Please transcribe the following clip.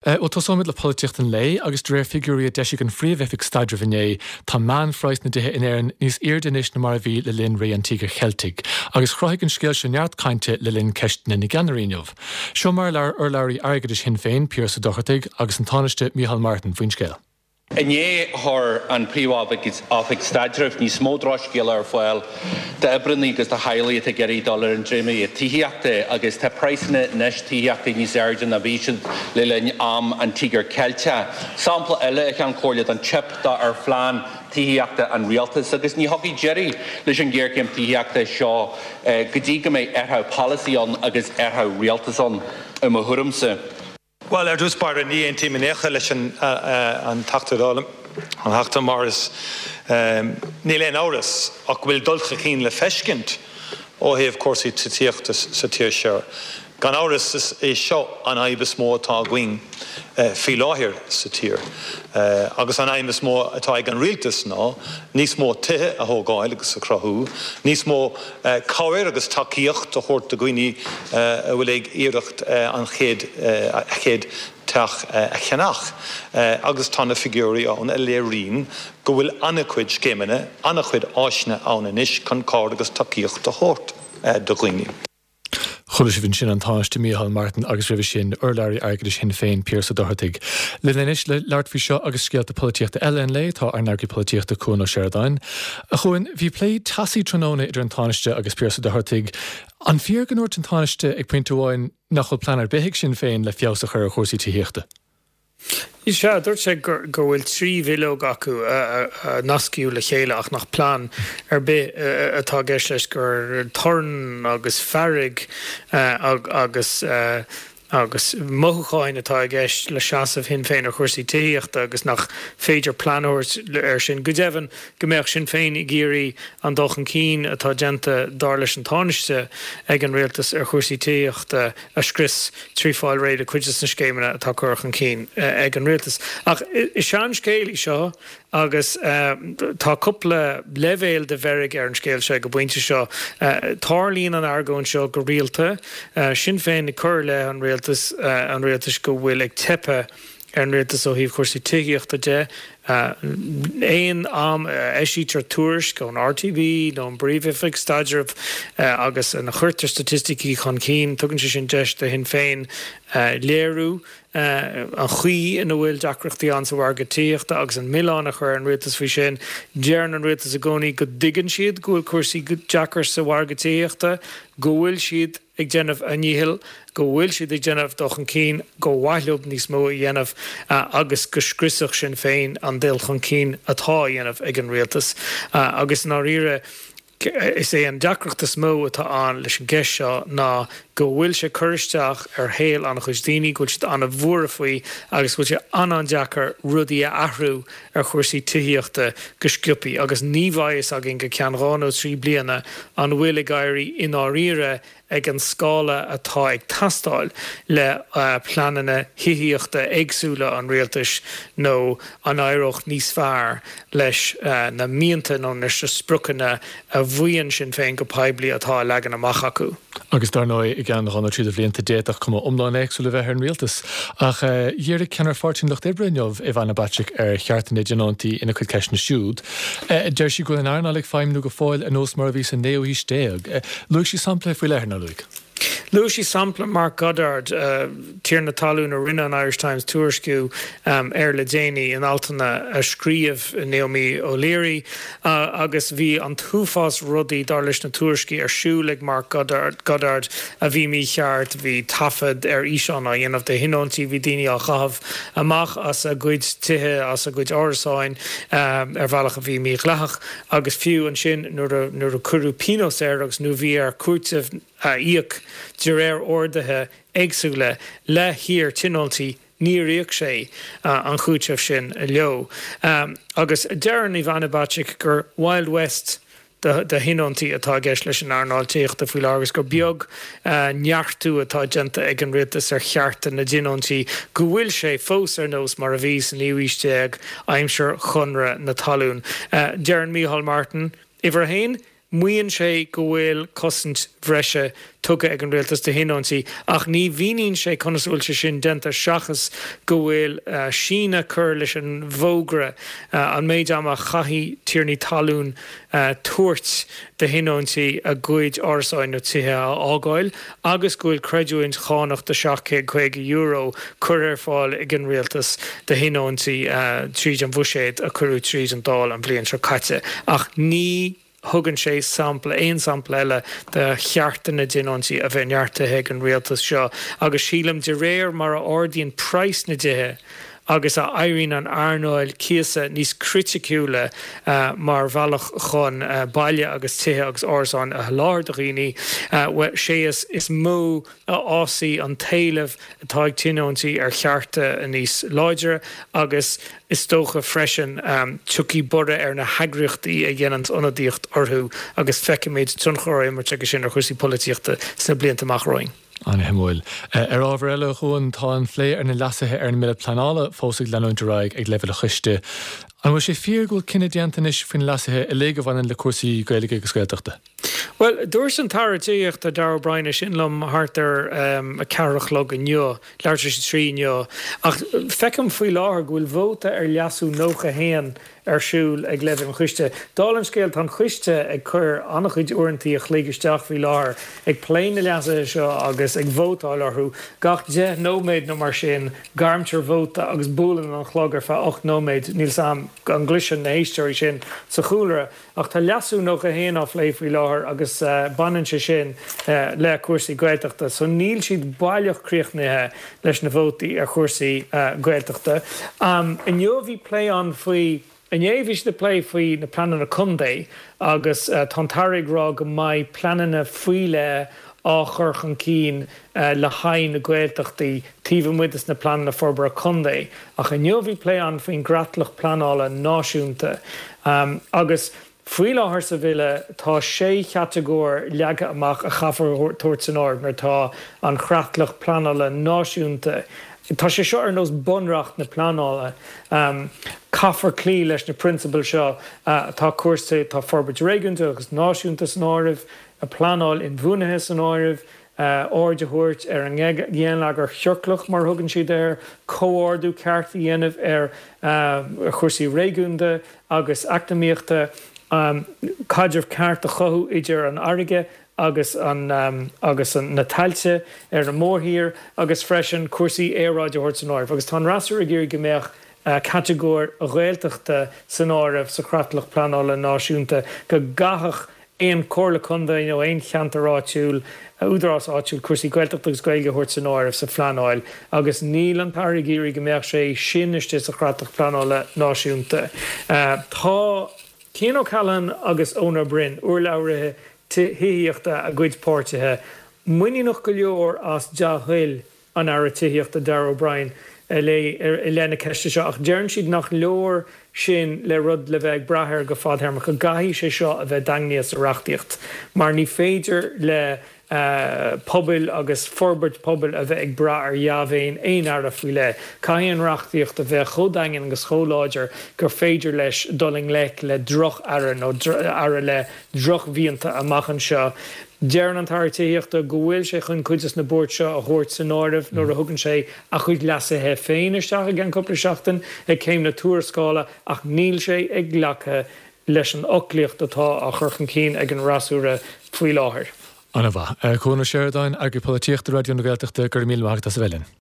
Bhuel, tosóimid le polaitíocht an lae agus de réir figiúirí a d'eisigh an Phríomh-Oifig Staidrimh inné, tá meánphraghas na dtithe in Éirinn níos airde anois ná mar a bhí le linn ré an Tíogair Cheiltigh, agus chruthaigh an scéal seo neart cainte le linn Ceisteanna na gCeannairí inniu. Seo mar a labhair urlabhraí airgeadais Shinn Féin, Pearse Ó Dochartaigh, agus an Tánaiste Micheál Martin faoin scéal. Inné chuir an Phríomh-Oifig Staidrimh níos mó drochscéala ar fáil d'oibreanna agus do theaghlaigh atá ag iarraidh dul ar an dréimire tithíochta agus tá praghsanna anois tithíochta níos airde ná bhí siad le linn am an Tíogair Cheilteach. Sampla eile, a Cheann Comhairle, den teip ar phlean tithíochta an Rialtais agus ní thiocfaidh deireadh leis an ghéarchéim tithíochta seo go dtí go mbeidh athrú polasaí ann agus athrú rialtais ann, i mo thuairimse. Bhuel, ar dtús báire, ní aontaím in aon chor leis an Teachta Dála, an Teachta Morris. Níl aon amhras ach go bhfuil dul chun cinn le feiscint ó thaobh cúrsaí titíochta sa tír seo. Gan amhras, is é seo an fhadhb is mó atá againn faoi láthair sa tír. Agus an aidhm is mó atá ag an Rialtas ná níos mó tithe a thógáil agus a chruthú, níos mó cabhair agus tacaíocht a thabhairt do dhaoine a bhfuil ag iarracht an chéad a chéad teach a cheannach agus tá na figiúirí ann a léiríonn go bhfuil an-chuid scéimeanna, an-chuid áiseanna ann anois chun cabhair agus tacaíocht a thabhairt do dhaoine. Chuala sibh ansin an Tánaiste Micheál Martin agus roimhe sin urlabhraí airgeadais Shinn Féin, Pearse Ó Dochartaigh. Linn anois le labhairt faoi seo agus scéalta polaitíochta eile an lae tá ár n-eagraí polaitíochta Cuan Ó Seireadáin. A Chuain, bhí plé teasaí tráthnóna idir an Tánaiste agus Pearse Ó Dochartaigh. An fíor go ndúirt an Tánaiste ag pointe amháin nach bhfuil plean ar bith ag Sinn Féin le feabhas a chur ar chúrsaí tithíochta? Sea, dúirt sé go bhfuil 3 bhileog acu a nascaíodh le chéile ach nach plean ar bith atá i gceist leis, gur torann agus fearg agus agus mothúcháin atá i gceist le seasamh Shinn Féin ar chúrsaí tithíochta agus nach féidir plean a thabhairt air sin. Go deimhin, go mbeadh Sinn Féin ag iarraidh an dul chun cinn atá déanta, dar leis an Tánaiste, ag an rialtas ar chúrsaí tithíochta a scrios trí fáil réidh le cuid de na scéimeanna atá curtha chun cinn ag an rialtas. Ach is seanscéal í seo agus tá cúpla leibhéal de mheirg ar an scéal seo ag an bpointe seo. Tarlaíonn an argóint seo go rialta, Sinn Féin ag cur i leith an rialtais, an rialtais go bhfuil ag teipeadh ar an rialtas ó thaobh chúrsaí tithíochta de. Aon am a eisítear tuairisc ón RTB nó ón bPríomh-Oifig Staidrimh agus ina chuirtear staitisticí chun cinn, tugann sé sin deis do Shinn Féin léiriú an chaoi ina bhfuil deacrachtaí ann sa mhargadh tithíochta agus an milleán a chur ar an rialtas faoi sin. Deireann an rialtas i gcónaí go dtuigeann siad go bhfuil cúrsaí deacair sa mhargadh tithíochta, go bhfuil siad ag déanamh a ndíchill, go bhfuil siad ag déanamh dul chun cinn, gur mhaith leo níos mó a dhéanamh agus go scriosfadh Sinn Féin an dul chun cinn atá á dhéanamh ag an rialtas. Agus i ndáiríre, is é an deacracht is mó atá ann leis an gceist seo ná go bhfuil sé ag cur isteach ar shaol an-chuid daoine, go bhfuil siad an-bhuartha faoi agus go bhfuil sé an-an-deacair rudaí a athrú ar chúrsaí tithíochta go sciobtha agus ní bheidh fhios againn go ceann 2 nó 3 bliana an bhfuil ag éirí i ndáiríre ag an scála atá ag teastáil le pleananna thithíochta éagsúla an rialtais nó an éireodh níos fearr leis na mianta nó leis na spriocanna a mhaíonn Sinn Féin go poiblí atá á leagan amach acu. Agus dar ndóigh, i gceann 2 nó 3 de bhlianta, d'fhéadfadh cuma iomlán éagsúil a bheith ar an rialtas. Ach dhírigh ceannaire Pháirtí an Lucht Oibre inniu, Ivana Bacik, ar chearta na dtionóntaí ina cuid ceisteanna siúd. Deir sí go bhfuil an earnáil ag feidhmniú go fóill ar nós mar a bhí sa naoú haois déag. Luaigh sí sampla faoi leith, ar nár luaigh? Luaigh sí sampla Mark Goddard, tiarna talún a rinne an Irish Times tuairisciú air le déanaí in altanna a scríobh Naomi O'Leary agus bhí an t-uafás rudaí, dar leis na tuairiscí, ar siúl ag Mark Goddard a bhí mícheart, bhí taifead ar fhíseán á dhéanamh de thionóntaí, bhí daoine á gcaitheamh amach as a gcuid tithe, as a gcuid árasáin ar bhealach a bhí mídhleathach. Agus fiú ansin nuair a cuireadh pionós air agus nuair a bhí air cúiteamh a íoc de réir orduithe éagsúla le hiar-tionóntaí, níor íoc sé an cúiteamh sin leo. Agus deireann Ivana Bacik gur Wild West do thionóntaí atá i gceist leis an earnáil tithíochta faoi láthair agus gur beag neartú atá déanta ag an rialtas ar chearta na dtionóntaí, go bhfuil sé fós ar nós mar a bhí sa naoú haois déag, aimsir Chonradh na Talún. Deireann Micheál Martin, Uimhir a haon. Maíonn sé go bhfuil cosaint bhreise tugtha ag an rialtas do thionóntaí ach ní mhíníonn sé conas a bhfuil sé sin déanta seachas go bhfuil síneadh curtha leis an bhfógra, an méid ama a chaithfidh tiarnaí talún tabhairt do thionóntaí a gcuid árasáin nó tithe a fhágáil agus go bhfuil creidiúint chánach de €750 curtha ar fáil ag an rialtas do thionóntaí tríd an bhuiséad a cuireadh tríd an Dáil an bhliain seo caite. Ach ní thugann sé sampla, aon sampla eile de chearta na dtionóntaí a bheith neartaithe ag an rialtas seo agus sílim de réir mar a ardaíonn praghas na dtithe agus a éiríonn an earnáil cíosa níos criticiúla mar bhealach chun baile agus tithe agus árasáin a sholáthar do dhaoine, bhuel, sé is mó a fhásfaidh an t-éileamh atá ag tionóntaí ar chearta níos láidre agus is dócha freisin tiocfaidh borradh ar na heagraíochtaí a dhéananns ionadaíocht orthu agus feicfimid tionchar á imirt aige sin ar chúrsaí polaitíochta sna blianta amach romhainn. An-shuimiúil. Ar ábhar eile, a Chuain, tá an phlé ar na leasuithe ar an mBille Pleanála fós ag leanúint ar aghaidh ag leibhéal an choiste. An bhfuil sé fíor go bhfuil cinneadh déanta anois faoi na leasuithe uilig a bhaineann le cúrsaí Gaeilge agus Gaeltachta? Bhuel, dúirt an tAire Tithíochta Darragh O'Brien é sin liom thart ar a ceathair a chlog inniu, leathuair tar éis a 3 inniu, ach feicim faoi láthair go bhfuil vóta ar leasú 91 ar siúl ag leibhéal an choiste. Dála an scéil, tá an coiste ag cur an-chuid uaireantaí a chloig isteach faoi láthair ag plé na leasuithe seo agus ag vótáil orthu. Gach 10 nóiméad nó mar sin, gairmtear vóta agus buaileann an clog ar feadh 8 nóiméad. Níl 's a'm an gcloiseann na héisteoirí sin sa chúlra. Ach tá leasú 91 á phlé faoi láthair agus baineann sé sin le cúrsaí Gaeltachta. So níl siad baileach críochnaithe leis na vótaí ar chúrsaí Gaeltachta. Inniu bhí plé ann faoi, inné bhí siad ag plé faoi na pleananna contae agus tá an tAire ag rá go mbeidh pleananna faoi leith á chur chun cinn le haghaidh na Gaeltachtaí taobh amuigh des na pleananna forbartha contae. Ach inniu bhí plé ann faoin gcreatlach pleanála náisiúnta agus faoi láthair sa bhille tá sé chatagóir leagtha amach a chaithfear tabhairt san áireamh nuair atá an chreatlach pleanála náisiúnta, tá sé seo ar nós bunreacht na pleanála, caithfear cloí leis na prionsabail seo, tá cúrsaí, tá forbairt réigiúnda agus náisiúnta san áireamh, pleanáil inbhuanaithe san áireamh, aird a thabhairt ar an ngeilleagar ciorclach, mar a thugann siad air, comhordú ceart a dhéanamh ar chúrsaí réigiúnda agus eacnamaíochta, caidreamh ceart a chothú idir an fharraige agus agus na tailte ar an mórthír agus freisin cúrsaí aeráide a thabhairt san áireamh. Agus tá an fhreasúra ag iarraidh go mbeadh catagóir Ghaeltachta san áireamh sa chreatlach pleanála náisiúnta, go gcaithfeadh aon chomhairle contae nó aon cheantar áitiúil, údarás áitiúil cúrsaí Gaeltachta agus Gaeilge a thabhairt san áireamh sa phleanáil agus níl an tAire ag iarraidh go mbeadh sé sin istigh sa chreatlach pleanála náisiúnta. Tá Cian O'Callaghan agus Eoin Ó Broin, urlabhraithe tithíochta a gcuid páirtithe, muiníneach go leor as dea-thoil an Aire Tithíochta Darragh O'Brien i leith na ceiste seo ach deireann siad nach leor sin le rud le bheith ag brath air go fadthéarmach, go gcaithfidh sé seo a bheith daingnithe sa reachtaíocht mar ní féidir le pobail agus forbairt pobail a bheith ag brath ar dhea-mhéin aon aire faoi leith. Caithfidh an reachtaíocht a bheith chomh daingean agus chomh láidir gur féidir leis dul i ngleic le droch-aire nó aire le drochmhianta amach anseo. Deireann an tAire Tithíochta go bhfuil sé chun cuid des na buairt seo a thabhairt san áireamh nuair a thugann sé a chuid leasuithe féin isteach i gceann cúpla seachtain ag céim na tuarascála ach níl sé ag glacadh leis an fhoclaíocht atá á chur chun cinn ag an fhreasúra faoi láthair. Ana-mhaith. Cuan Ó Seireadáin, Eagraí Polaitíochta Raidió na Gaeltachta, go raibh míle maith agat as a bheith linn.